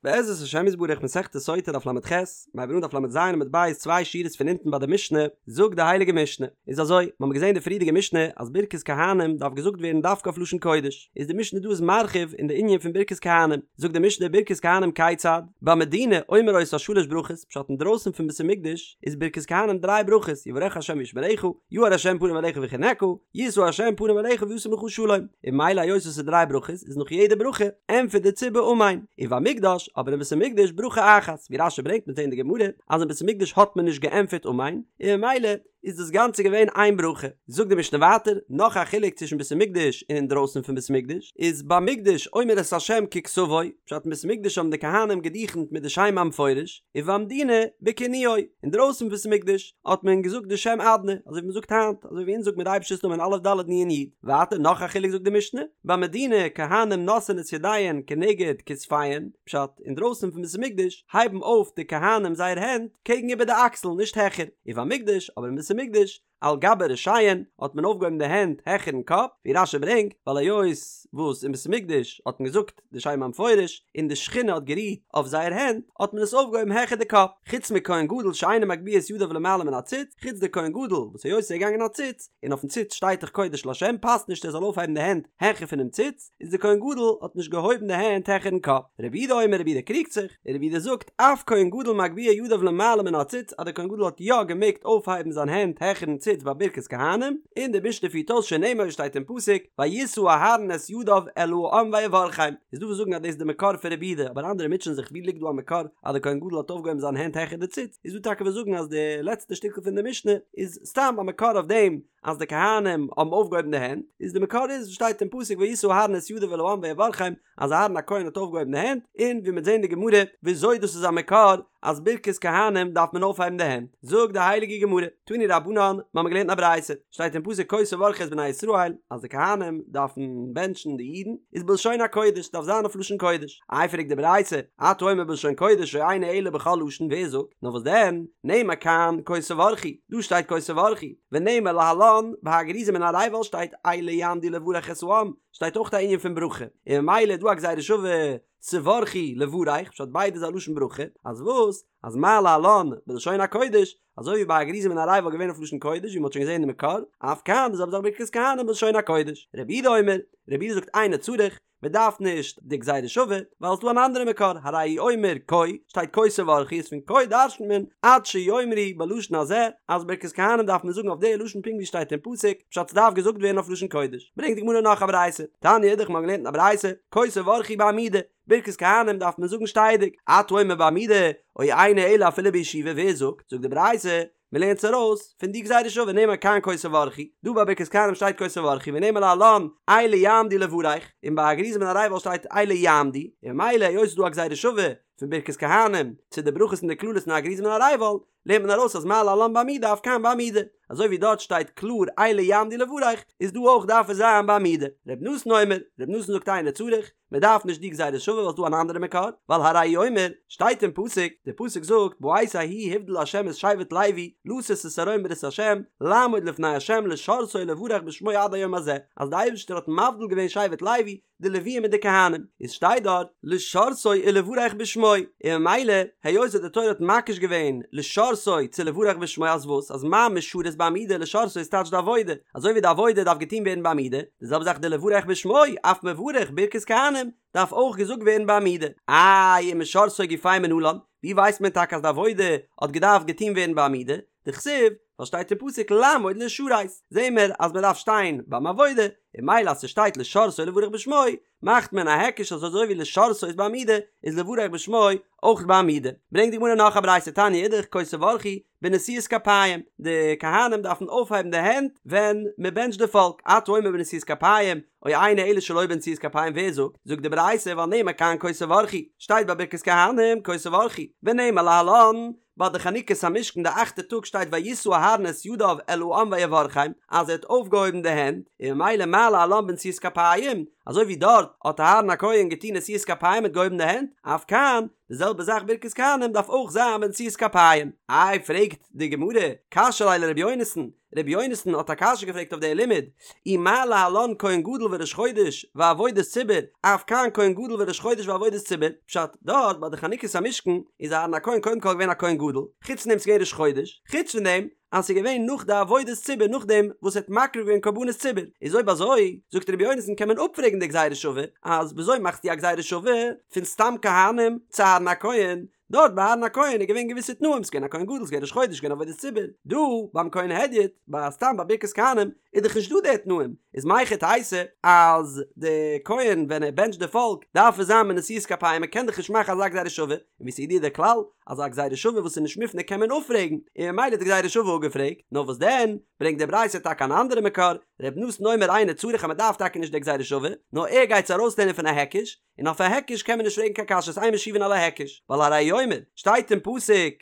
בעזרת השם יתברך מסכת סוטה דף ל"ח, מיר הייבן אן דף ל"ז עמוד ב' צוויי שורות פון אונטן ביי די משנה, זאגט די הייליגע משנה, איז אזוי, מיר האבן געזען די פריערדיגע משנה אז ברכת כהנים דארף געזאגט ווערן דווקא אויף לשון קודש, איז די משנה דא איז מרחיב אין די ענין פון ברכת כהנים, זאגט די משנה ברכת כהנים כיצד, במדינה אומר אותה שלש ברכות, פשט אינדרויסן פון בית המקדש איז ברכת כהנים דריי ברכות, יברכך ה' וישמרך, יאר ה' פניו אליך ויחנך, ישא ה' פניו אליך וישם לך שלום, און ממילא היות עס איז דריי ברכות איז נאך יעדע ברכה ענטפערט די ציבור אמן, ובמקדש, אבער אין בית המקדש ברכה אחת, ווי רש"י ברענגט מ'וועט זען אין די גמרא אז אין בית המקדש האט מען נישט געענטפערט אמן, און ממילא איז דאס גאנצע געווען איין ברכה. זאגט די משנה ווייטער, נאך א חילוק צווישן בית המקדש און אינדרויסן פון בית המקדש, איז במקדש אומר את השם ככתבו, פשט אין בית המקדש האבן די כהנים געדוכנט מיט די שם המפורש, ובמדינה בכינויו, אינדרויסן פון בית המקדש האט מען געזאגט די שם אדני, אזוי ווי מען זאגט היינט, אזוי ווי אונז זאגט מיר די אייבערשטער'ס נאמען א' ד' נ' י'. ווייטער נאך א חילוק זאגט די משנה, במדינה כהנים נושאין את ידיהן כנגד כתפיהן, פשט, אינדרויסן פון בית המקדש הייבן אויף די כהנים זייער הענט קעגן איבער די אקסל נישט העכער, ובמקדש, אבער אין בית המקדש, על גבי ראשיהן האט מען אויפגעהויבן די הענט העכערן קאפ, ווי רש"י ברענגט, ווייל היות וואס אין בית המקדש האט מען געזאגט די שם המפורש און די שכינה האט גערוהט אויף זייער הענט, האט מען עס אויפגעהויבן העכער די קאפ, חוץ מכהן גדול שאינו מגביה את ידיו למעלה מן הציץ, חוץ די כהן גדול וואס היות ער איז געגאנגען א ציץ, און אויפן ציץ שטייט דאך קודש לה' פאסט נישט ער זאל אויפהייבן די הענט העכער פונעם ציץ, איז די כהן גדול האט נישט געהויבן די הענט העכערן קאפ. רבי יהודה אומר רבי יהודה קריגט זיך, און רבי יהודה זאגט אף כהן גדול מגביה ידיו למעלה מן הציץ אז די כהן גדול האט יא געמעגט אויפהייבן זיין הענט העכערן ציץ ביי ברכת כהנים, און די משנה פירט אויס שנאמר שטייט אין פסוק וישא אהרן את ידיו אל העם ויברכם, איז דא וואס זאגן אז דאס איז די מקור פון רבי יהודה אבער אנדערע מוטשען זיך ווי ליגט דא א מקור אז די כהן גדול האט אויפגעהויבן זיין הענט העכער די ציץ, איז דא טאקע וואס זאגן אז די לעצטע שטיקל פון די משנה איז סתם א מקור אויף דעם אז די כהנים האבן אויפגעהויבן די הענט, איז די מקור איז וואס שטייט אין פסוק וישא אהרן את ידיו אל העם ויברכם, אז אהרן הכהן האט אויפגעהויבן די הענט, און ווי מ'וועט זען אין די גמרא וויאזוי דאס איז א מקור אז ברכת כהנים דארף מען אויפהייבן די הענט, זאגט די הייליגע גמרא, תנו רבנן, מ'האמיר געלערנט א ברייתא, שטייט אין פסוק כה תברכו את בני ישראל, אז די כהנים דארפן בענטשן די אידן, איז בלשון הקודש, דארף זיין אויף לשון קודש. איי פרעגט די ברייתא, אתה אומר בלשון קודש או אינו אלא בכל לשון ווער זאגט? נאר וואס דען, נאמר כאן כה תברכו, דא שטייט כה תברכו, ונאמר להלן, ביי הר גריזים און הר עיבל שטייט אלה יעמדו לברך את העם, שטייט אויך א ענין פון ברכה, און ממילא איז דא א גזירה שווה תברכו לברך, פשט ביידע איז א לשון ברכה, אז וואס? אז מה להלן בלשון הקודש, אזוי ווי ביי הר גריזים און הר עיבל געווען אויף לשון קודש ווי מ'האט שוין געזען די מקור, אף כאן די זעלבע זאך ברכת כהנים בלשון הקודש. רבי יהודה אומר, רבי יהודה זאגט אינו צריך, מען דארף נישט די גזירה שווה, ווייל עס איז דא אן אנדערע מקור, הרי הוא אומר כה, שטייט כה תברכו איז פון כה דרש'נט מען עד שיאמרו בלשון הזה, אז ברכת כהנים דארף מען זאגן אויף די לשון פונקט ווי שטייט אין פסוק, פשט ס'דארף געזאגט ווערן אויף לשון קודש. ברענגט די גמרא נאך א ברייתא, תניא אידך מ'האט געלערנט אין א ברייתא, כה תברכו בעמידה, ברכת כהנים דארף מען זאגן שטייעדיג, אתה אומר בעמידה, או אינו אלא אפילו בישיבה, ווער זאגט? זאגט די ברייתא, מען לערנט עס ארויס פון די גזירה שווה נאמר כאן כה תברכו, דא ביי ברכת כהנים שטייט כה תברכו ונאמר להלן אלה יעמדו לברך, און ביי הר גריזים און הר עיבל שטייט אלה יעמדו, און ממילא היות ס'איז דא א גזירה שווה פון ברכת כהנים צו די ברכות און די קללות אין הר גריזים און הר עיבל, לערנט מען ארויס אז מה להלן בעמידה אף כאן בעמידה, אזוי ווי דארט שטייט קלאר אלה יעמדו לברך, איז דא אויך דארף עס זיין בעמידה. ר' נתן אומר, ר' נתן זאגט אינו צריך, מען דארף נישט די גזירה שווה ווייל ס'דא אן אנדערע מקור, ווייל הרי הוא אומר, שטייט אין פסוק, די פסוק זאגט, בעת ההיא הבדיל ה' את שבט לוי, לשאת את ארון ברית ה', לעמוד לפני ה' לשרתו ולברך בשמו עד היום הזה, אז די אייבערשטער האט מבדיל געווען שבט לוי, די לוויים מיט די כהנים, איז שטייט דארט, לשרתו ולברך בשמו, און ממילא, היות אז די תורה האט מקיש געווען לשרתו צו לברך בשמו אז וואס, אז מה משרת בעמידה לשרתו איז טייטש די עבודה, אזוי ווי די עבודה דארף געטון ווערן בעמידה, די זעלבע זאך די לברך בשמו, אף מברך ברכת כהנים, דארף אויך געזאגט ווערן בעמידה. איי ומשרתו גופיה מנלן, ווי ווייסט מען טאקע אז די עבודה האט געדארפט געטון ווערן בעמידה? דכתיב, ווייל שטייט אין פסוק לעמוד לשרת, זעהן מיר אז מען דארף שטיין ביים עבודה, און ממילא אז ס'שטייט לשרתו ולברך בשמו, מאכט מען א היקש אז אזוי ווי לשרתו איז בעמידה, איז לברך בשמו אויך בעמידה. ברענגט די גמרא נאך א ברייתא תניא אידך כה תברכו, בנשיאת כפיים, די כהנים דארפן אויפהייבן די הענט ווען מען בענטשט די פאלק, אתה אומר בנשיאת כפיים, או אינו אלא שלא בנשיאת כפיים ווער זאגט? זאגט די ברייתא ווייל נאמר כאן כה תברכו, שטייט ביי ברכת כהנים כה תברכו, ונאמר להלן, ביי די חנוכת המשכן די אכטע טאג שטייט וישא אהרן את ידיו אל העם ויברכם אז ער האט אויפגעהויבן די הענט, און ממילא מה להלן בנשיאת כפיים, אזוי ווי דארט האט אהרן הכהן געטון נשיאת כפיים מיט געהויבן די הענט, אף כאן, די זעלבע זאך ברכת כהנים דארף אויך זיין בנשיאת כפיים. איי פרעגט די גמרא, קשיא ליה לר' יונתן, ר' יונתן האט א קשיא געפרעגט אויף די לימוד, אי מה להלן כהן גדול וראש חודש ועבודת ציבור, אף כאן כהן גדול וראש חודש ועבודת ציבור, פשט, דארט ביי די חנוכת המשכן איז אהרן הכהן קודם כל געווען א כהן גדול, חוץ פון דעם ס'געווען ראש חודש, חוץ פון דעם אז ס'איז געווען נאך די עבודת ציבור נאכדעם וואס ער האט מקריב געווען קרבנות ציבור, איז אויב אזוי זאגט ר' יונתן קען מען אפפרעגן די גזירה שווה, אז וויאזוי מאכסטו א גזירה שווה פון סתם כהנים צו אהרן הכהן, דארט ביי אהרן הכהן איז געווען געוויסע תנאים, ס'געווען א כהן גדול, ס'געווען ראש חודש, ס'געווען עבודת ציבור, דא ביים כהן הדיוט, ביי סתם ביי ברכת כהנים, איז דאך נישט דא די תנאים, איז מהיכי תיתי אז די כהן ווען ער בענטשט די פאלק דארף עס זיין בנשיאת כפיים, מ'קען דאך נישט מאכן אזא גזירה שווה, און ווי ס'איז ידוע דער כלל אז א גזירה שווה וואס איז נישט מופנה קען מען אפפרעגן, און ממילא איז די גזירה שווה אפגעפרעגט, נאר וואס דען, ברענגט די ברייתא טאקע אן אנדערע מקור, ר' נתן אומר אינו צריך אז מ'דארף טאקע נישט די גזירה שווה, נאר ער גייט עס ארויסלערנען פון א היקש, און אויף א היקש קען מען נישט פרעגן קיין קשיות אין משיבין על ההיקש, ווייל הרי הוא אומר, שטייט אין פסוק,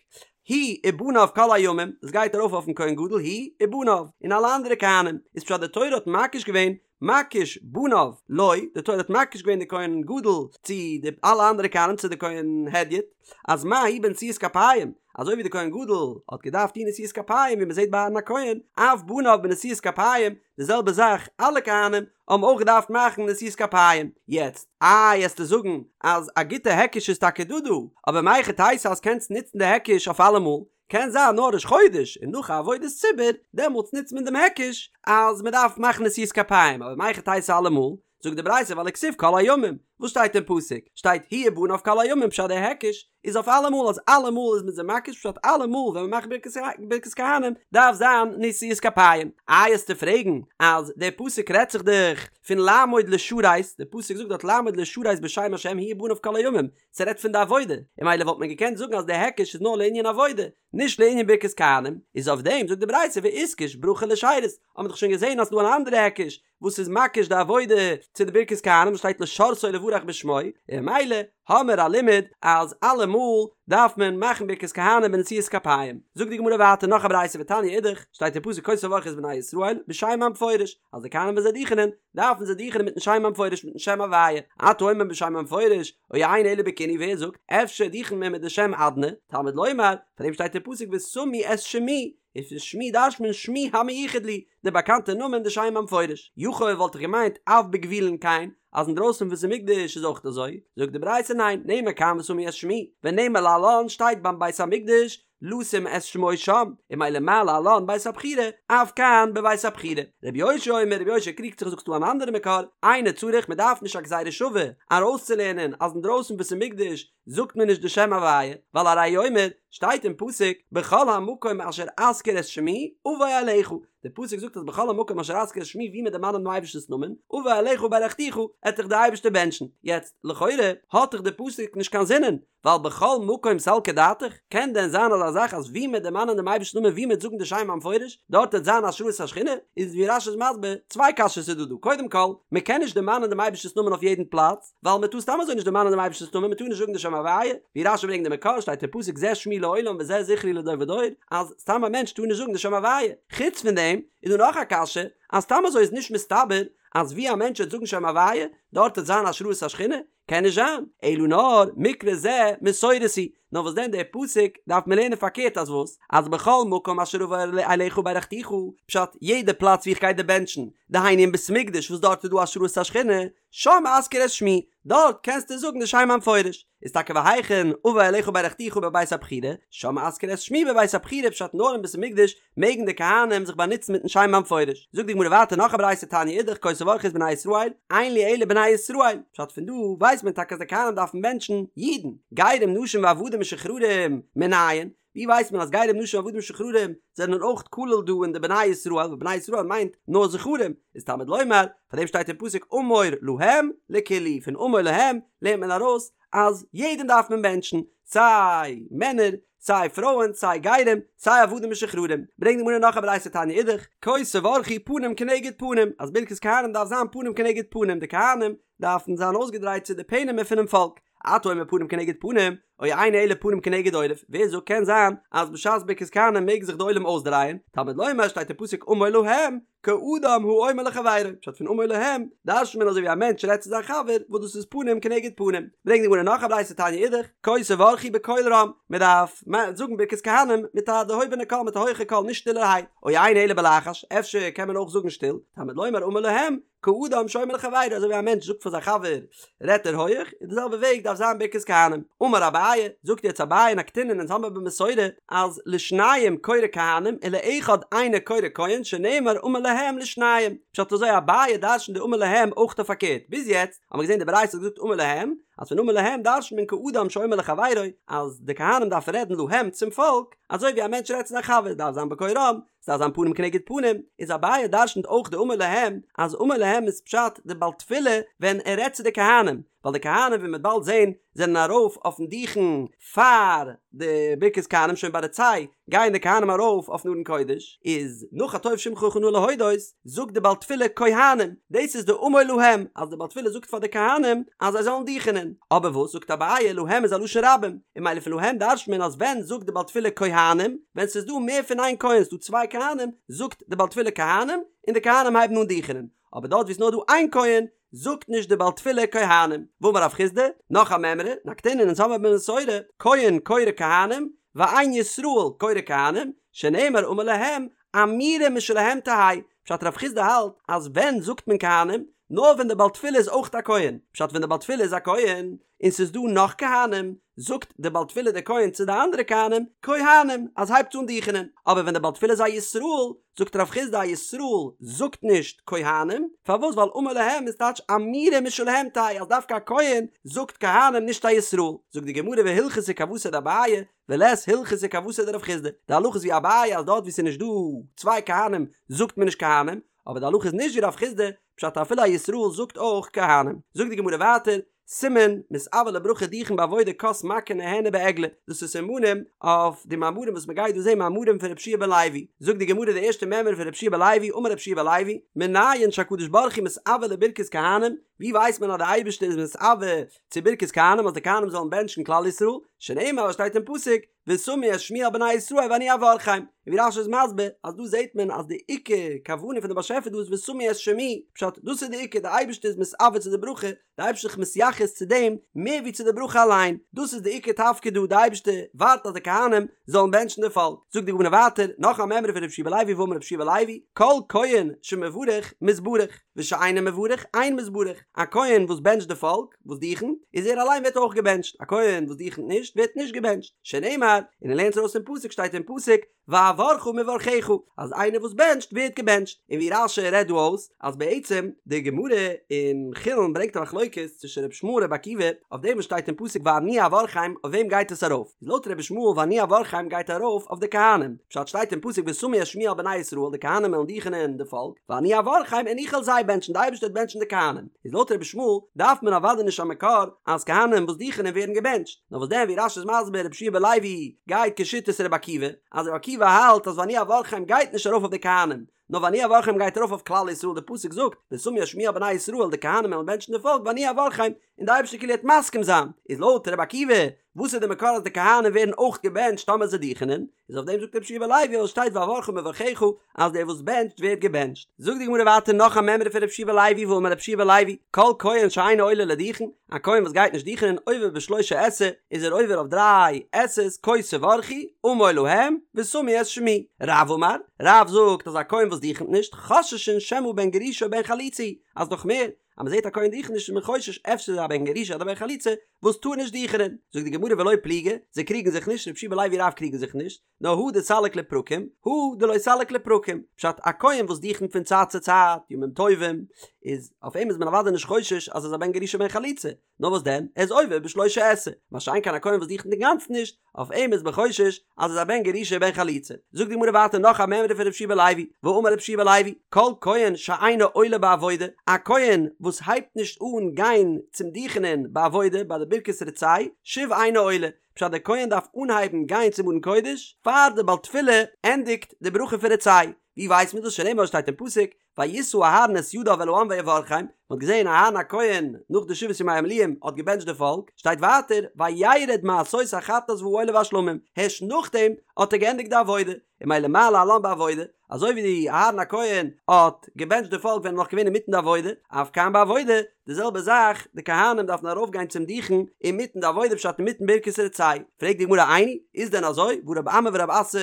הוא ובניו כל הימים, דאס גייט ארויף אויפן כהן גדול הוא ובניו, און אלע אנדערע כהנים, איז פשט די תורה האט מקיש געווען מקיש בניו לו, די תורה האט מקיש געווען די כהן גדול צו די אלע אנדערע כהנים צו די כהן הדיוט, אז מה הוא בנשיאת כפיים, אזוי ווי די כהן גדול האט געדארפט טון נשיאת כפיים ווי מען זעט ביי אהרן הכהן, אף בניו בנשיאת כפיים, די זעלבע זאך אלע כהנים האבן אויך געדארפט מאכן נשיאת כפיים. יעצט, איי עסטו זאגן אז א גוטע היקש איז טאקע דא דא, אבער מהיכי תיתי אז קענסט נוצן די היקש אויף אלעמאל, קען זיין נאר ראש חודש און נאך א עבודת ציבור, דעמאלטס נוצט מען דעם היקש אז מען דארף מאכן נשיאת כפיים, אבער מהיכי תיתי אלעמאל, זאגט די ברייתא ווייל וכתיב כל הימים, וואס שטייט אין פסוק? שטייט הוא ובניו כל הימים פשט די היקש איז אויף אלעמאל אז אלעמאל איז מען זיי מקיש פשט אלעמאל ווען מען מאכט ברכת כהנים דארף זיין נשיאת כפיים. איי עסטו פרעגן אז דער פסוק רעדט זיך דאך פון לעמוד לשרת, דער פסוק זאגט דארט לעמוד לשרת בשם השם הוא ובניו כל הימים, ס'רעדט פון די עבודה, און ממילא וואלט מען געקענט זאגן אז דער היקש איז נאר לענין עבודה, נישט לענין ברכת כהנים, איז אויף דעם זאגט די ברייתא ואיתקש ברכה לשירות, האט מען דאך שוין געזען אז ס'דא אן אנדערע היקש וואס איז מקיש די עבודה צו די ברכת כהנים וואס שטייט לשרתו ולברך בשמו, און ממילא האמער א לימוד אז אלעמאל דארף מען מאכן ברכת כהנים בנשיאת כפיים. זאגט די גמרא ווייטער נאך א ברייתא ותניא אידך, שטייט אין פסוק כה תברכו את בני ישראל בשם המפורש, אז די כהנים ווען זיי דוכענען דארפן זיי דוכענען מיטן שם המפורש מיטן שם הוויה, אתה אומר בשם המפורש, או אינו אלא בכינוי ווער זאגט אפשר דוכנט מען מיט די שם אדני, תלמוד לומר, פאר דעם שטייט אין פסוק ושמו את שמי, און פון שמי דרש'ט מען שמי המיוחד לי, די באקאנטע נאמען די שם המפורש. יכול וואלט איך געמיינט אף בגבולין כן, אז אינדרויסן פון בית המקדש איז אויך אזוי, זאגט די ברייתא ניין, נאמר כאן ושמו את שמי, ונאמר להלן שטייט ביים בית המקדש לשום את שמו שם, און ממילא מה להלן בית הבחירה, אף כאן בבית הבחירה. רבי יאשיה אומר, רבי יאשיה קריגט זיך זאגט ס'דא אן אנדערע מקור, אינו צריך מען דארף נישט א גזירה שווה ארויסצולערנען אז אינדרויסן בית המקדש זאגט מען נישט די שם הוויה, ווייל הרי הוא אומר, שטייט אין פסוק, בכל המקום אשר אזכיר את שמי, אבוא אליך, די פסוק זאגט אז בכל המקום אשר אזכיר את שמי ווי מען דערמאנט דעם אייבערשטנ'ס נאמען, אבוא אליך וברכתיך, עט דיך די אייבערשטער בענטשן. יעצט, לכאורה, האט דאך די פסוק נישט קיין זינען, ווייל בכל מקום סלקא דעתך, קען דען זיין אזא זאך אז ווי מען דערמאנען דעם אייבערשטנ'ס נאמען ווי מען זאגן די שם המפורש, דארט וועט זיין השראת השכינה? איז ווי רש"י איז מסביר, צוויי קשיות איז דא דא, קודם כל, מען קען נישט דערמאנען דעם אייבערשטנ'ס נאמען אויף יעדן פלאץ, ווייל מען טאר סתם אזוי נישט דערמאנען דעם אייבערשטנ'ס נאמען, מען טאר נישט זאגן די שם הוויה, ווי רש"י ברענגט די מקור, שטייט אין פסוק זה שמי לעולם וזה זכרי לדור ודור, אז סתם א מענטש טאר נישט זאגן די שם הוויה. חוץ פון דעם איז דא נאך א קשיא, אז סתם אזוי איז נישט מסתבר אז ווי א מענטש וועט זאגן שם הוויה, דארט וועט זיין השראת השכינה, קען נישט זיין, אלא נאר מקרא זה מסורת הוא, נאר וואס דען דער פסוק דארף מען לערנען פארקערט אז וואס? אז בכל מקום אשר אבוא אליך וברכתיך, פשט, יעדע פלאץ ווי איך גיי דיר בענטשן, דהיינו אין בית המקדש וואס דארט איז דא השראת השכינה, שם אזכיר את שמי, דארט קענסטו זאגן די שם המפורש, איז טאקע והיכן אבוא אליך וברכתיך בבית הבחירה, שם אזכיר את שמי בבית הבחירה פשט נאר אין בית המקדש מעגן די כהנים זיך באנוצן מיטן שם המפורש. זאגט די גמרא ווייטער נאך א ברייתא תניא אידך כה תברכו את בני ישראל, אין לי אלא בני ישראל, פשט פון דא ווייסט מען טאקע אז די כהנים דארפן בענטשן אידן, גרים נשים ועבדים משוחררים מנין, ווי ווייסט מען אז גרים נשים ועבדים משוחררים זענען אויך כלול דא אין די בני ישראל ווייל בני ישראל מיינט נאר זכרים איז תלמוד לומר פאר דעם שטייט אין פסוק אמור להם לכולהו פון אמור להם לערנט מען ארויס אז יעדעם דארף מען בענטשן סיי מענער סיי פרויען סיי גרים סיי עבדים משוחררים ברענגט די גמרא נאך א ברייתא תניא אידך כה תברכו פנים כנגד פנים אז ברכת כהנים דארף זיין פנים כנגד פנים די כהנים דארפן זיין אויסגעדרייט צו די פענעמער פונעם פאלק. אתה אומר פנים כנגד פנים, או אינו אלא פנים כנגד עורף, ווער זאגט קען זיין אז בשעת ברכת כהנים מעג זיך די עולם אויסדרייען, תלמוד לומר שטייט אין פסוק אמור להם, כאדם האומר לחבירו, פשט פון אמור להם, דרש'נט מען אזוי ווי א מענטש רעדט צו זיין חבר, וואס דאס איז פנים כנגד פנים. ברענגט די גמרא נאך א ברייתא תניא אידך, כה תברכו בקול רם, מען דארף זאגן ברכת כהנים מיט א דערהויבענע קול, מיט א הויכע קול, נישט שטילערהייט, או אינו אלא בלחש, אפשר קען מען אויך זאגן שטיל, תלמוד לומר אמור להם, כאדם שאומר לחבירו, אזוי ווי א מענטש זאגט פאר זיין חבר, רעדט ער הויעך, אין די זעלבע וועג דארף זיין ברכת כהנים. אמר אביי, זאגט יעצט אביי נקטינן אונז האמיר במסורה אז לשניים קורא כהנים ולאחד אינו קורא כהן שנאמר אמור להם לשניים. פשט אזוי אביי דרש'נט די אמור להם אויך אויף פארקערט, ביז יעצט האמיר געזען די ברייתא האט געזאגט אמור להם, אז פון אמור להם דרש'נט מען כאדם שאומר לחבירו, אז די כהנים דארפן רעדן להם צום פאלק, אזוי ווי א מענטש רעדט צו זיין חבר דארף זיין בקול רם, ס'דארף זיין פנים כנגד פנים, איז אביי דרשנ'ט אויך די אמור להם, אז אמור להם איז פשט די בעל תפילה ווען ער רעדט צו די כהנים, ווייל די כהנים ווי מ'וועט באלד זעהן זענען ארויף אויפן דוכן פאר די ברכת כהנים שוין ביי רצה גייען די כהנים ארויף אויפן ארון קודש, איז נאך הטוב שמך נאה להודות זאגט די בעל תפילה כהנים, דאס איז די אמור להם אז די בעל תפילה זאגט פאר די כהנים אז זיי זאלן דוכענען, אבער וואס זאגט אביי להם איז א לשון רבים, און ממילא פון להם דרש'ט מען אז ווען זאגט די בעל תפילה כהנים, ווען ס'איז דא מער פון איין כהן, ס'דא צוויי כהנים, זאגט די בעל תפילה כהנים, און די כהנים הייבן אן דוכענען, אבער דארט ווי ס'נאר דא איין כהן, זאגט נישט די בעל תפילה כהנים. ואמר רב חסדא, נאך א מימרא, נקטינן אונז האמיר במסורה, כהן קורא כהנים, ואין ישראל קורא כהנים, שנאמר אמור להם, אמירה משלהם תהא, פשט רב חסדא האלט אז ווען זאגט מען כהנים? נאר ווען די בעל תפילה איז אויך א כהן, פשט ווען די בעל תפילה איז א כהן, און ס'איז דא נאך כהנים, זאגט די בעל תפילה דער כהן צו די אנדערע כהנים, כהנים, אז הייבטס אן דוכענען, אבער ווען די בעל תפילה איז א ישראל, זאגט רב חסדא א ישראל זאגט נישט כהנים, פארוואס ווייל אמור להם איז טייטש אמירה משלהם תהא אז דווקא א כהן זאגט כהנים נישט א ישראל, זאגט די גמרא והלכתא כוותיה דאביי, ולית הלכתא כוותיה דרב חסדא, די הלכה איז ווי אביי אז דארט ווי ס'איז נישט דא צוויי כהנים זאגט מען נישט כהנים, אבער די הלכה איז נישט ווי רב חסדא, פשט אפילו א ישראל זאגט אויך כהנים. זאגט די גמרא ווייטער, סימן, מתאוה לברכה דוכן בעבודה כוס מכה נהנה בעגלה, דאס איז סימנים אויף די מאמרים וואס מ'גייט דא זעהן מאמרים פון רבי יהושע בן לוי, זאגט די גמרא די ערשטע מימרא פון רבי יהושע בן לוי, אמר רבי יהושע בן לוי, מנין שהקדוש ברוך הוא מתאוה לברכת כהנים, ווי ווייסט מען אז די אייבערשטער איז מתאוה צו ברכת כהנים אז די כהנים זאלן בענטשן כלל ישראל, שנאמר וואס שטייט אין פסוק, ושמו את שמי על בני ישראל ואני אברכם, און ווי רש"י איז מסביר אז דא זעט מען אז די עיקר כוונה פון די באשעפער דא איז ושמו את שמי, פשט דאס איז די עיקר די אייבערשטער איז מתאוה צו די ברכה, די אייבערשטער איז זיך מתייחס צו דעם מער ווי צו די ברכה אליין, דאס איז די עיקר תפקיד דא, די אייבערשטער ווארט אז די כהנים זאלן בענטשן די פאלק. זאגט די גמרא ווייטער, נאך א מימרא פון רבי יהושע בן לוי ואמר רבי יהושע בן לוי, כל כהן שמברך מתברך, ושאינו מברך אין מתברך, א כהן וואס בענטשט די פאלק, וואס דוכנט, איז ער אליין ווערט אויך געבענטשט, א כהן וואס דוכנט נישט ווערט נישט געבענטשט, שנאמר, און ער לערנט ארויס פון פסוק שטייט אין פסוק, ואברכה מברכיך, אז איינער וואס בענטשט ווערט געבענטשט, און ווי רש"י רעדט דא אויס, אז בעצם די גמרא אין חולין ברענגט א מחלוקת צווישן רבי ישמעאל און רבי עקיבא, אויף דעם וואס שטייט אין פסוק ואני אברכם, אויף וועם גייט עס ארויף? איז לויט רבי ישמעאל ואני אברכם גייט ארויף אויף די כהנים, פשט שטייט אין פסוק ושמו את שמי על בני ישראל די כהנים וועלן דוכענען די פאלק, ואני אברכם און איך וועל זיי בענטשן, די אייבערשטער וועט בענטשן די כהנים, איז לויט רבי ישמעאל דארף מען אוודאי נישט א מקור אז כהנים וואס דוכענען ווערן געבענטשט, נאר וואס דען ווי רש"י איז מסביר רבי יהושע בן לוי גייט כשיטת רבי עקיבא, אז רבי עקיבא האלט אז ואני אברכם גייט נישט ארויף אויף די כהנים, נאר ואני אברכם גייט ארויף אויף כלל ישראל, די פסוק זאגט ושמו את שמי על בני ישראל די כהנים וועלן בענטשן די פאלק ואני אברכם, און די אייבערשטער כאילו וועט מסכים זיין, איז לויט רבי עקיבא וואס איז די מקור אז די כהנים ווערן אויך געבענטשט טאמער זיי דוכענען? איז אויף דעם זאגט רבי יהושע בן לוי אז שטייט ואברכה מברכיך אז דער וואס בענטשט ווערט געבענטשט. זאגט די גמרא ווייטער נאך א מימרא פון רבי יהושע בן לוי ואמר רבי יהושע בן לוי כל כהן שאינו עולה לדוכן, א כהן וואס גייט נישט דוכענען עובר בשלושה עשה איז ער עובר אויף דריי עשה'ס כה תברכו אמור להם ושמו את שמי. רב אמר, רב זאגט אז א כהן וואס דוכנט נישט חוששין שמא בן גרושה או בן חלוצה הוא, אז נאך מער, אז מען זעט א כהן דוכנט נישט איז מען חושש אפשר איז ער א בן גרושה אדער בן חלוצה וואס טאר נישט דוכענען, זאגט די גמרא ולא פליגי, זיי קריגן זיך נישט, רבי יהושע בן לוי רב קריגן זיך נישט, נאר הא דסליק לפרקים, הא דלא סליק לפרקים, פשט א כהן וואס דוכנט פון צייט צו צייט, ימים טובים, איז אויף אים איז מען אוודאי נישט חושש אז ער איז א בן גרושה בן חלוצה, נאר וואס דען, ער איז עובר בשלושה עשה, מה שאין כן א כהן וואס דוכנט אינגאנצן נישט, אויף אים איז מען חושש אז ער איז א בן גרושה בן חלוצה. זאגט די גמרא ווייטער נאך א מימרא פון רבי יהושע בן לוי, ואמר רבי יהושע בן לוי, כל כהן שאינו עולה בעבודה, א כהן וואס הייבט נישט אן גיין צום דוכענען בעבודה ביי די ברכת רצה, שוב אינו עולה, פשט דער כהן דארף אנהייבן גיין צום ארון קודש פאר די בעל תפילה ענדיגט די ברכה פון רצה, ווי ווייסט מען דאס שנאמר שטייט אין פסוק, וישא אהרן את ידיו אל העם ויברכם, מען האט געזען אהרן הכהן נאך די שבעת ימי המילואים האט געבענטשט די פאלק, שטייט ווייטער וירד מעשות החטאת והעולה והשלמים, הערשט נאכדעם האט ער געענדיגט די עבודה, און ממילא מה להלן בעבודה, אזוי ווי אהרן הכהן האט געבענטשט די פאלק ווען ער איז נאך געווען אינמיטן די עבודה, אף כאן בעבודה, די זעלבע זאך, די כהנים דארפן ארויפגיין צום דוכן אינמיטן די עבודה פשט אינמיטן ברכת רצה. פרעגט די גמרא איני, איז דען אזוי, והא רב אמי ורב אסי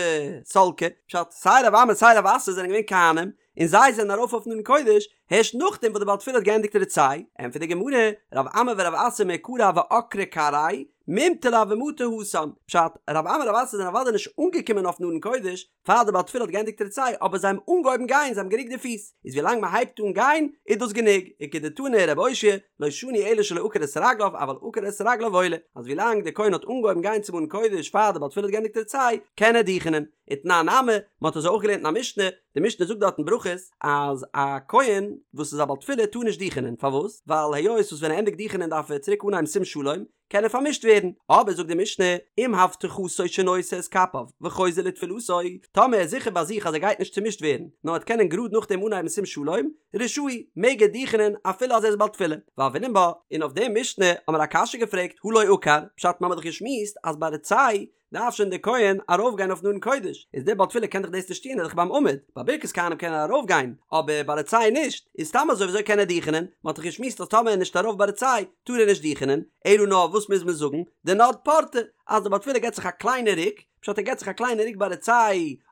סלקי, פשט, סיי רב אמי סיי רב אסי זענען געווען כהנים, און זיי זענען ארויף אויפן ארון קודש, הערשט נאכדעם וואס די בעל תפילה האט געענדיגט רצה, ענטפערט די גמרא, רב אמי ורב אסי מעיקרא הוו עקרי כרעייהו, ממטא לא הוו מטו התם, פשט, רב אמי און רב אסי זענען אוודאי נישט אנגעקומען אויפן ארון קודש פאר די בעל תפילה האט געענדיגט רצה, אבער זיי האבן אנגעהויבן גיין, זיי האבן גערוקט די פיס, איז ווילאנג מען הייבט אן גיין איז דאס גענוג, וכדתני רבי אושעיא, לא שנו אלא שלא עקר את רגליו אבל עקר את רגליו עולה, אז ווילאנג דער כהן האט אנגעהויבן גיין צום ארון קודש פאר די בעל תפילה האט געענדיגט רצה, קען ער דוכענען. ותנן נמי, מען האט אזוי אויך געלערנט אין א משנה, די משנה זאגט דארט אין ברכות אז א כהן וואס איז א בעל תפילה טאר נישט דוכענען, פארוואס? ווייל היות וואס ווען ער ענדיגט דוכענען דארף ער צוריק אנהייבן שים שלום, קען ער פארמישט ווערן, אבער זאגט די משנה, אם הבטחתו שנושא את כפיו וחוזר לתפילתו, טאמער ער איז זיכער ביי זיך אז ער גייט נישט צומישט ווערן, נאר ער וועט קענען גראד נאכדעם אנהייבן שים שלום, רשאי, מעג ער דוכענען אפילו אז ער איז בעל תפילה. והוינן בה, און אויף די משנה האבן מיר א קשיא געפרעגט, הא לא עקר, פשט מ'האמיר דאך געשמועסט אז ביי רצה דארף שוין דער כהן ארויפגיין אויפן ארון קודש, איז דער בעל תפילה קען דאך דאס נישט טון, ער איז דאך ביים עמוד, ביי ברכת כהנים קען ער ארויפגיין, אבער ביי רצה נישט, איז סתם אזוי וויאזוי קען ער דוכענען, מען האט דאך געשמועסט אז טאמער ער איז נישט ארויף ביי רצה טאר ער נישט דוכענען, אלא נאר וואס מוז מען זאגן, דנד פורתא, אז דער בעל תפילה געבט זיך א קליינע רוק, פשט ער געבט זיך א קליינע רוק ביי רצה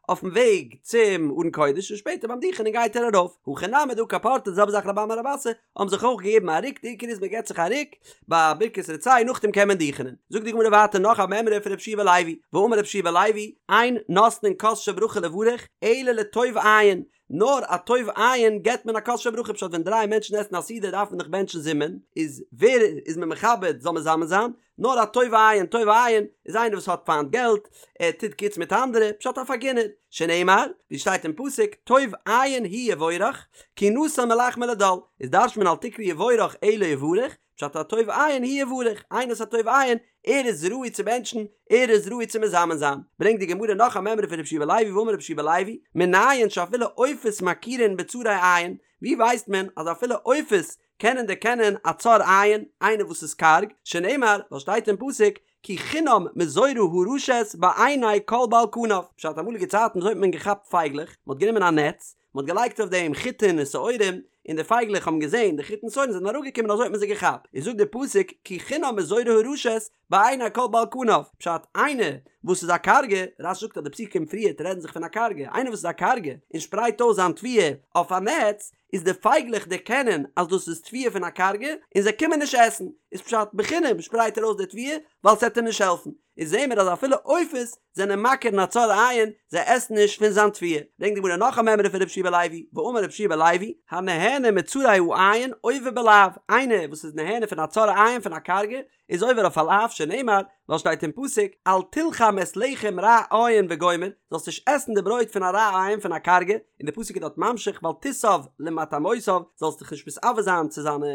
אויפן וועג צום ארון קודש און שפעטער ביים דוכענען גייט ער ארויף, הכא נמי דעקר פורתא די זעלבע זאך רבי אמי און רב אסי האבן זיך אויך געגעבן א רוק, די עיקר איז מען געבט זיך א רוק ביי ברכת רצה נאכדעם קען מען דוכענען. זאגט די גמרא ווייטער נאך א מימרא פון רבי יהושע בן לוי, ואמר רבי יהושע בן לוי, אין נותנין כוס של ברכה לברך אלא לטוב עין, נאר א טוב עין געבט מען א כוס של ברכה, פשט ווען דריי מענטשן עסן א סעודה דארף מען דאך בענטשן זימון, איז ווער איז מען מכבד זאל מזמן זיין, נאר א טוב עין, טוב עין איז איינער וואס האט פיינט געלט, ער טוט גוטס מיט אנדערע, פשט א פארגינער, שנאמר, ווי שטייט אין פסוק, טוב עין הוא יבורך, כי נתן מלחמו לדל, איז דרש'ט מען אל תקרי יבורך אלא יברך, פשט א טוב עין הוא יברך, איינער וואס א טוב עין, ער איז ראוי צו בענטשן, ער איז ראוי צו מזמן זיין. ברענגט די גמרא נאך א מימרא פון רבי יהושע בן לוי ואמר רבי יהושע בן לוי, מנין שאפילו עופות מכירין בצרי עין, ווי ווייסט מען אז אפילו עופות קענען דערקענען א צר עין, איינער וואס איז קארג, שנאמר, ווייל שטייט אין פסוק, כי חינם מזורה הרשת בעיני כל בעל כנף, פשט אמאליגע צייטן וויאזוי האט מען געכאפט פייגלעך, מען האט גענומען א נעץ, מען האט געלייגט אויף דעם חיטין און שעורים, און די פייגלעך האבן געזען די חיטין שעורים זענען אראפגעקומען אזוי האט מען זיי געכאפט, איז זאגט דער פסוק, כי חינם מזורה הרשת בעיני כל בעל כנף, פשט, איינער וואס איז א קארגע, רש"י זאגט אז די פסוקים פריערט רעדן זיך פון א קארגע, איינער וואס איז א קארגע און שפרייט אויס זיין תבואה אויף א נעץ, איז די פייגלעך דערקענען אז דאס איז תבואה פון א קארגע און זיי קומען נישט עסן, איז פשט בחינם שפרייט ער אויס די תבואה ווייל ס'עט אים נישט העלפן, איז זעהן מיר אז אפילו עופות זענען מכיר אין א צר עין, זיי עסן נישט פון זיין תבואה. ברענגט די גמרא נאך א מימרא פון רבי יהושע בן לוי, ואמר רבי יהושע בן לוי, הנהנה מצרי העין עובר בלאו, איינער וואס איז נהנה פון א צר עין פון א קארגע, איז עובר אויף א לאו שנאמר, ווייל שטייט אין פסוק, אל תלחם את לחם רע עין וגומר, זאלסט נישט עסן די ברויט פון א רע עין פון א קארגע, און די פסוק איז דארט ממשיך ואל תתאו למטעמותיו, זאלסט דיך נישט מתאוה זיין צו זיינע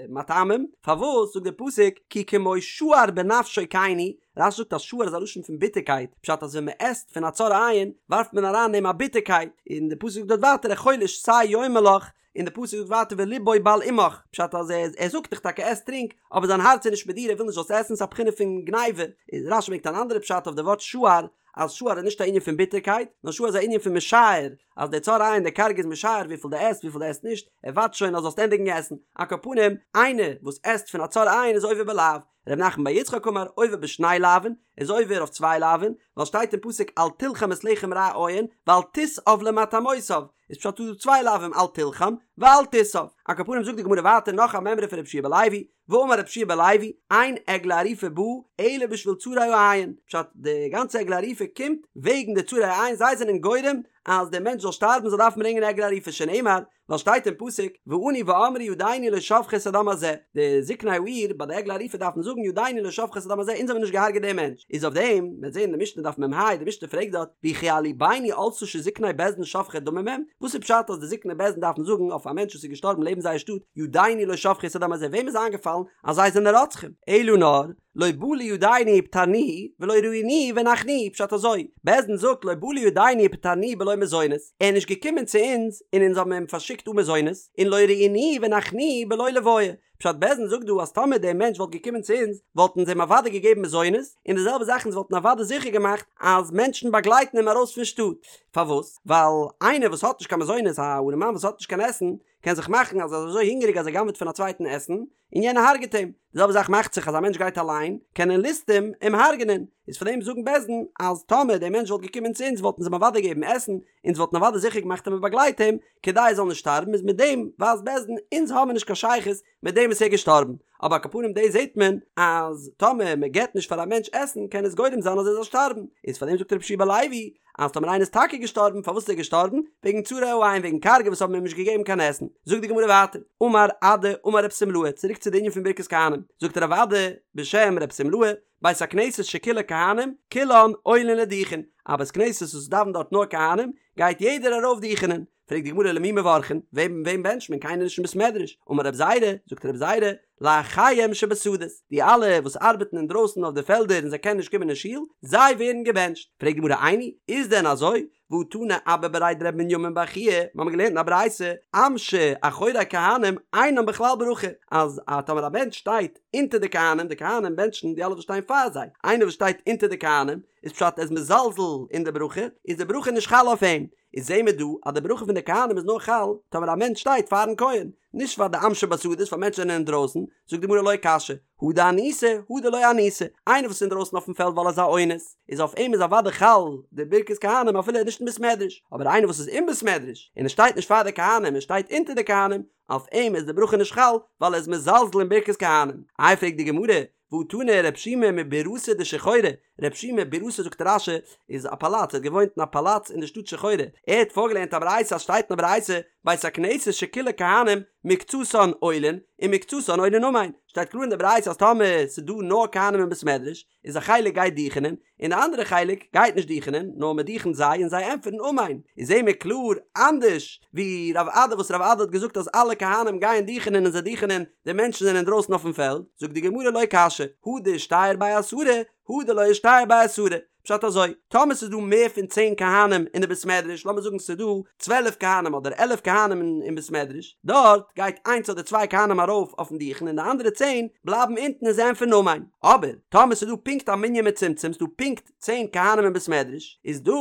מטעמים, פארוואס זאגט די פסוק, כי כמו שער בנפשו כן הוא, רש"י זאגט אז שער איז א לשון פון ביטערקייט, פשט אז ווען מען עסט פון א צר עין ווארפט מען אריין אין אים א ביטערקייט, און די פסוק זאגט דארט ווייטער אכול ושתה יאמר לך, און די פסוק זאגט ווייטער ולבו בל עמך, פשט אז ער ער זאגט דיך טאקע עס טרינק, אבער זיין הארץ איז נישט מיט דיר ער וויל נישט זאלסט עסן ס'איז א בחינה פון גניבה, איז רש"י ברענגט אן אנדערע פשט אויף די ווארט שער, אז שער איז נישט א ענין פון ביטערקייט, נאר שער איז א ענין פון משער, אז דער צר עין דער קארגע איז משער וויפיל דו עסט וויפיל דו עסט נישט, ער ווארט שוין אז זאלסט ענדיגן עסן, על כל פנים, איינער וואס עסט פון א צר עין איז עובר בלאו, ר' נחמן בר יצחק אמר עובר בשני לאווין, איז עובר אויף צוויי לאווין, ווייל שטייט אין פסוק אל תלחם את לחם רע עין, ואל תתאו למטעמותיו, איז פשט דא צוויי לאווין אל תלחם ואל תתאו. על כל פנים זאגט די גמרא ווייטער נאך א מימרא פון רבי יהושע בן לוי, ואמר רבי יהושע בן לוי, אין עגלה ערופה באה אלא בשביל צרי העין, פשט די גאנצע עגלה ערופה קומט וועגן די צרי העין זיי זענען גורם אז דער מענטש זאל שטארבן זאל דארפן ברענגען עגלה ערופה שנאמר ווייל שטייט אין פסוק וענו ואמרו ידינו לא שפכו את הדם הזה, די זקני העיר ביי די עגלה ערופה דארפן זאגן ידינו לא שפכו את הדם הזה אונז האבן נישט געהארגעט דעם מענטש, איז אויף דעם מ'וועט זען אין די משנה דף מ"ה די משנה פרעגט דארט וכי על לבנו עלתה שזקני בית דין שופכי דמים הם, וואס איז פשט אז די זקני בית דין דארפן זאגן אויף א מענטש וואס איז געשטארבן לעבן זייער שטאט ידינו לא שפכו את הדם הזה וועם איז איינגעפאלן אז זיי זענען רוצחים? אלא נאר. לא בא לידינו ופטרנוהו ולא ראינוהו והנחנו, פשט אזוי, בית דין זאגט לא בא לידינו ופטרנוהו בלא מזונות, ער איז נישט געקומען צו אונז און אונז האבן אים פארשיקט אן מזונות, און לא ראינוהו והנחנו בלא לוויה, פשט בית דין זאגט דא אז טאמער דער מענטש וואלט געקומען צו אונז וואלטן אונז אים אוודאי געגעבן מזונות, און די זעלבע זאך אונז וואלטן אוודאי זיכער געמאכט אז מענטשן באגלייטן אים ארויס פון שטאט, פארוואס? ווייל איינער וואס האט נישט קיין מזונות, א ארעמאן וואס האט נישט קיין עסן, קען זיך מאכן אז ער איז אזוי הונגעריג אז ער גנב'עט פון א צווייטן עסן, און יענער הרג'עט אים. די זעלבע זאך מאכט זיך אז א מענטש גייט אליין, קענען ליסטים אים הרג'ענען. איז פאר דעם זאגן בית דין אז טאמער דער מענטש וואלט געקומען צו אונז וואלטן אונז אים אוודאי געגעבן עסן, אונז וואלטן אוודאי זיכער געמאכט אז מען באגלייט אים, כדי ער זאל נישט שטארבן, איז מיט דעם ווייזט בית דין אונז האבן נישט קיין שייכות מיט דעם וואס ער איז געשטארבן. אבער על כל פנים דאס זעט מען אז טאמער מען געבט נישט פאר א מענטש עסן קען עס גורם זיין אז ער זאל שטארבן. איז פאר דעם זאגט רבי יהושע בן לוי אז טאמער איינער איז טאקע געשטארבן, פארוואס איז ער געשטארבן? וועגן צרי העין, וועגן קארגע וואס האבן אים נישט געגעבן קיין עסן. זאגט די גמרא ווייטער, אמר אדא אמר רב שמלאי, צוריק צו די ענין פון ברכת כהנים, זאגט רב אדא בשם רב שמלאי, בית הכנסת שכולה כהנים, כולן עולין לדוכן, א בית כנסת וואס דאווענט דארט נאר כהנים, גייט יעדער ארויף דוכענען. פרעגט די גמרא למי מברכין, וועם וועם בענטשט מען, קיינער נישט אין בית מדרש, אמר רב זירא, זאגט רב זירא, לאחיהם שבשדות, די אלע וואס ארבעטן אינדרויסן אויף די פעלדער און זיי קענען נישט קומען אין שול, זיי ווערן געבענטשט. פרעגט די גמרא איני, איז דען אזוי? והא תנא אבא בריה דרב מנימין בר חייא, מיר האבן געלערנט אין א ברייתא, עם שאחורי כהנים אינם בכלל ברכה, אז א טאמער א מענטש שטייט אונטער די כהנים, די כהנים בענטשן די אלע וואס שטייען פאר זיי, איינער וואס שטייט אונטער די כהנים, איז פשט ער איז מזלזל אין די ברכה, איז די ברכה נישט חל אויף אים. איז זעהן מיר דא אז די ברכה פון די כהנים איז נאר חל טאמער א מענטש שטייט פארן כהן, נישט פאר די עם שבשדות פאר מענטשן זענען אינדרויסן, זאגט די גמרא לא קשיא, הא דאניסי הא דלא אניסי, איינער וואס איז אינדרויסן אויפן פעלד ווייל ער איז א אונס, איז אויף אים איז אוודאי חל די ברכת כהנים אפילו ער איז נישט אין בית מדרש, אבער איינער וואס איז אין בית מדרש און ער שטייט נישט פאר די כהנים ער שטייט אונטער די כהנים, אויף אים איז די ברכה נישט חל ווייל ער איז מזלזל אין ברכת כהנים. איי פרעגט די גמרא, והא תנא רב שימי מבירתא דשחורי, רב שימי בירתא זאגט רש"י איז א פאלאץ, ער האט געוואוינט אין א פאלאץ אין די שטאט שחורי, ער האט פארגעלערנט א ברייתא אז שטייט אין א ברייתא בית הכנסת שכולה כהנים מקצתן עולין ומקצתן עונין אמן, שטייט קלאר אין די ברייתא אז טאמער ס'איז דא נאר כהנים אין בית מדרש איז א חלק גייט דוכענען און די אנדערע חלק גייט נישט דוכענען נאר מען דוכנט זיי און זיי ענטפערן אמן, איז זעהן מיר קלאר אנדערש ווי רב אדא וואס רב אדא האט געזאגט אז אלע כהנים גייען דוכענען און זיי דוכענען די מענטשן זענען אינדרויסן אויפן פעלד, זאגט די גמרא לא קשיא, הא דאישתייר בי עשרה, הא דלא אישתייר בי עשרה, פשט אזוי, טאמער ס'איז דא מער פון צען כהנים אין די בית מדרש, לאמיר זאגן ס'איז דא 12 כהנים אדער עלף כהנים אין בית מדרש, דארט גייט איינס אדער צוויי כהנים ארויף אויפן דוכן און די אנדערע צען בלייבן אונטן און זיי ענטפערן אמן. אבער טאמער ס'איז דא פונקט א מנין מצומצם, ס'איז דא פונקט צען כהנים אין בית מדרש, איז דא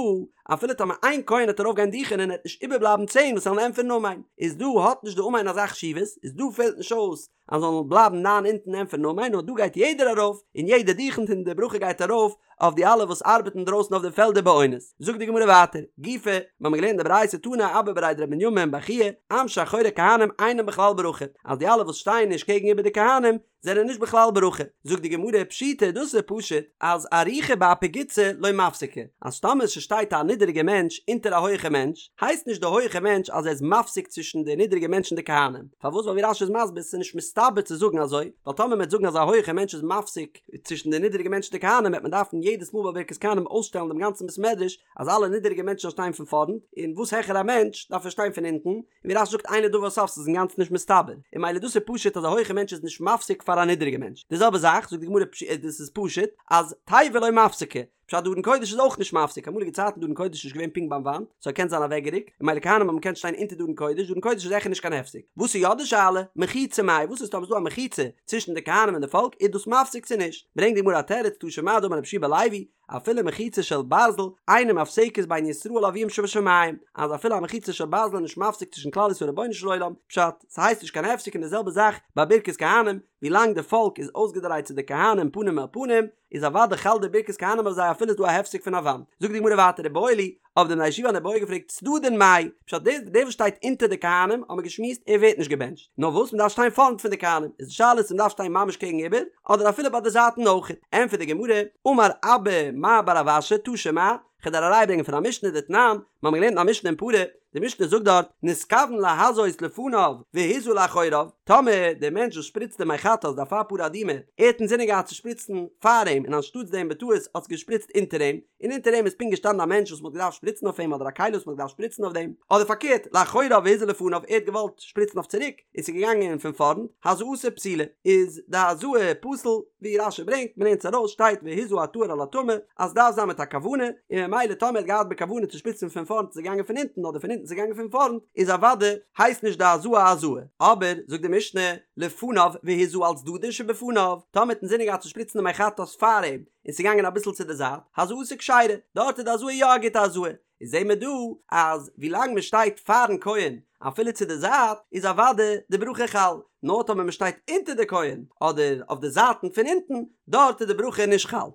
אפילו טאמער איין כהן וועט ארויף גיין דוכענען עט נישט איבערבלייבן צען וואס זאלן ענטפערן אמן, איז דא האט נישט די אמן אזא חשיבות, איז דא פעלט נישט אויס אז זאלן בלייבן ניין אונטן ענטפערן אמן, נאר דא גייט יעדער ארויף און יעדער דוכנט און די ברכה גייט ארויף אויף די אלע וואס ארבעטן דרויסן אויף די פעלדער באונס. זאגט די גמרא ווייטער, גופא, מיר האבן געלערנט די ברייתא תנא אבא בריה דרב מנימין בר חייא, עם שאחורי כהנים אינם בכלל ברכה, אז די אלע וואס שטייען נישט קעגן איבער די כהנים זענען נישט בכלל ברכה. זאגט די גמרא, פשיטא, דאס איז פשוט, אז אריכא באפי גוצי לא מפסקי, אז טאמער ס'שטייט א נידעריגע מענטש אונטער א הויעכע מענטש, הייסט נישט די הויעכע מענטש אז ער איז מפסיק צווישן די נידעריגע מענטש און די כהנים. פארוואס? ווייל ווי רש"י איז מסביר, ס'איז נישט מסתבר צו זאגן אזוי, ווייל טאמער מ'וועט זאגן אז א הויעכע מענטש איז מפסיק צווישן די נידעריגע מענטש און די כהנים וועט מען דארפן יעדעס מאל ביי ברכת כהנים אויסשטעלן דעם גאנצן בית מדרש אז אלע נידעריגע מענטשן זאלן שטיין פון פארנט, און וואס העכער א מענטש דארף ער שטיין פון אונטן, און ווי רש"י זאגט אין לדבר סוף ס'איז אינגאנצן נישט מסתבר, און ממילא דאס איז פשוט אז א הויכע מענטש איז נישט מפסיק פאר א נידעריגע מענטש, די זעלבע זאך זאגט די גמרא דאס איז פשוט אז תיבה לא מפסקא, פשט די ארון קודש איז אויך נישט מפסיק, אמאליגע צייטן די ארון קודש איז נישט געווען פונקט ביים וואנט, ס'האט געקענט זיין אוועקגערוקט, און ממילא כהנים האבן געקענט שטיין אונטער די ארון קודש, די ארון קודש איז זיכער נישט קיין הפסק. וואס איז יא די שאלה? מחיצה מאי, וואס איז טאמער ס'איז דא א מחיצה צווישן די כהנים און די פאלק, איז דאס מפסיק צו נישט? ברענגט די גמרא א תירוץ, תא שמע דאמר רבי יהושע בן לוי, אפילו מחיצה של ברזל, אינה מפסקת בין ישראל לאביהם שבשמים, אז אפילו א מחיצה של ברזל איז נישט מפסיק צווישן כלל ישראל און רבונו של עולם, פשט, ס'הייסט נישט קיין הפסק און די זעלבע זאך ביי ברכת כהנים, ווילאנג די פאלק איז אויסגעדרייט צו די כהנים פנים אל פנים, איז אוודאי חל די ברכת כהנים אויף זיי אפילו איז דא א הפסק פון א וואנט. זאגט די גמרא ווייטער איבעיא להו, האבן די בני ישיבה אן איבעיא געפרעגט צדדין מאי, פשט דער דער וואס שטייט אונטער די כהנים האבן מיר געשמועסט ער ווערט נישט געבענטשט, נאר וואס מען דארף שטיין פארנט פון די כהנים, איז די שאלה צו מען דארף שטיין ממש קעגן איבער, אדער אפילו ביי די זייטן אויך. ענטפערט די גמרא, אמר אבא מר בר רב אשי תא שמע, כ'וועל דיר א ראיה ברענגען פון א משנה דתנן, מיר האבן געלערנט אין א משנה אין פרה, די משנה זאגט דארט, נתכוון להזות לפניו והזה לאחוריו, טאמער דער מענטש וואס שפריצט די מי חטאת די אפר פרה אדומה, ער האט אינזינען געהאט צו שפריצן פאר אים און אנשטאטס דעם בטעות האט עס געשפריצט אונטער אים, און אונטער אים איז פונקט געשטאנען א מענטש וואס מ'האט געדארפט שפריצן אויף אים אדער א כלי וואס מ'האט געדארפט שפריצן אויף דעם, אדער פארקערט, לאחוריו והזה לפניו, ער האט געוואלט שפריצן אויף צוריק און ס'איז געגאנגען פון פארנט, הזאתו פסולה, איז די הזאה פסול, ווי רש"י ברענגט, מ'לערנט עס ארויס, שטייט והזה הטהור על הטמא, אז ס'דארף זיין מיט א כוונה, און ממילא טאמער ער האט געהאט בכוונה צו שפריצן פון פארנט איז ער געגאנגען פון הינטן אדער פון הינטן איז ער געגאנגען פון פארנט, איז אוודאי הייסט נישט די הזאה א הזאה. אבער, זאגט די משנה, לפניו והזה על צדדין שבפניו, טאמער האט אינזינען געהאט צו שפריצן די מי חטאת פאר אים, און ס'איז געגאנגען אביסל צו די זייט, הזאתו כשרה, דארט איז די הזאה יא א גוטע הזאה. איז זעהן מיר דא אז ווילאנג מען שטייט פארן כהן אפילו צו די זייט איז אוודאי די ברכה חל, נאר טאמער מען שטייט אונטער די כהן אדער אויף די זייטן פון אונטן דארט איז די ברכה נישט חל.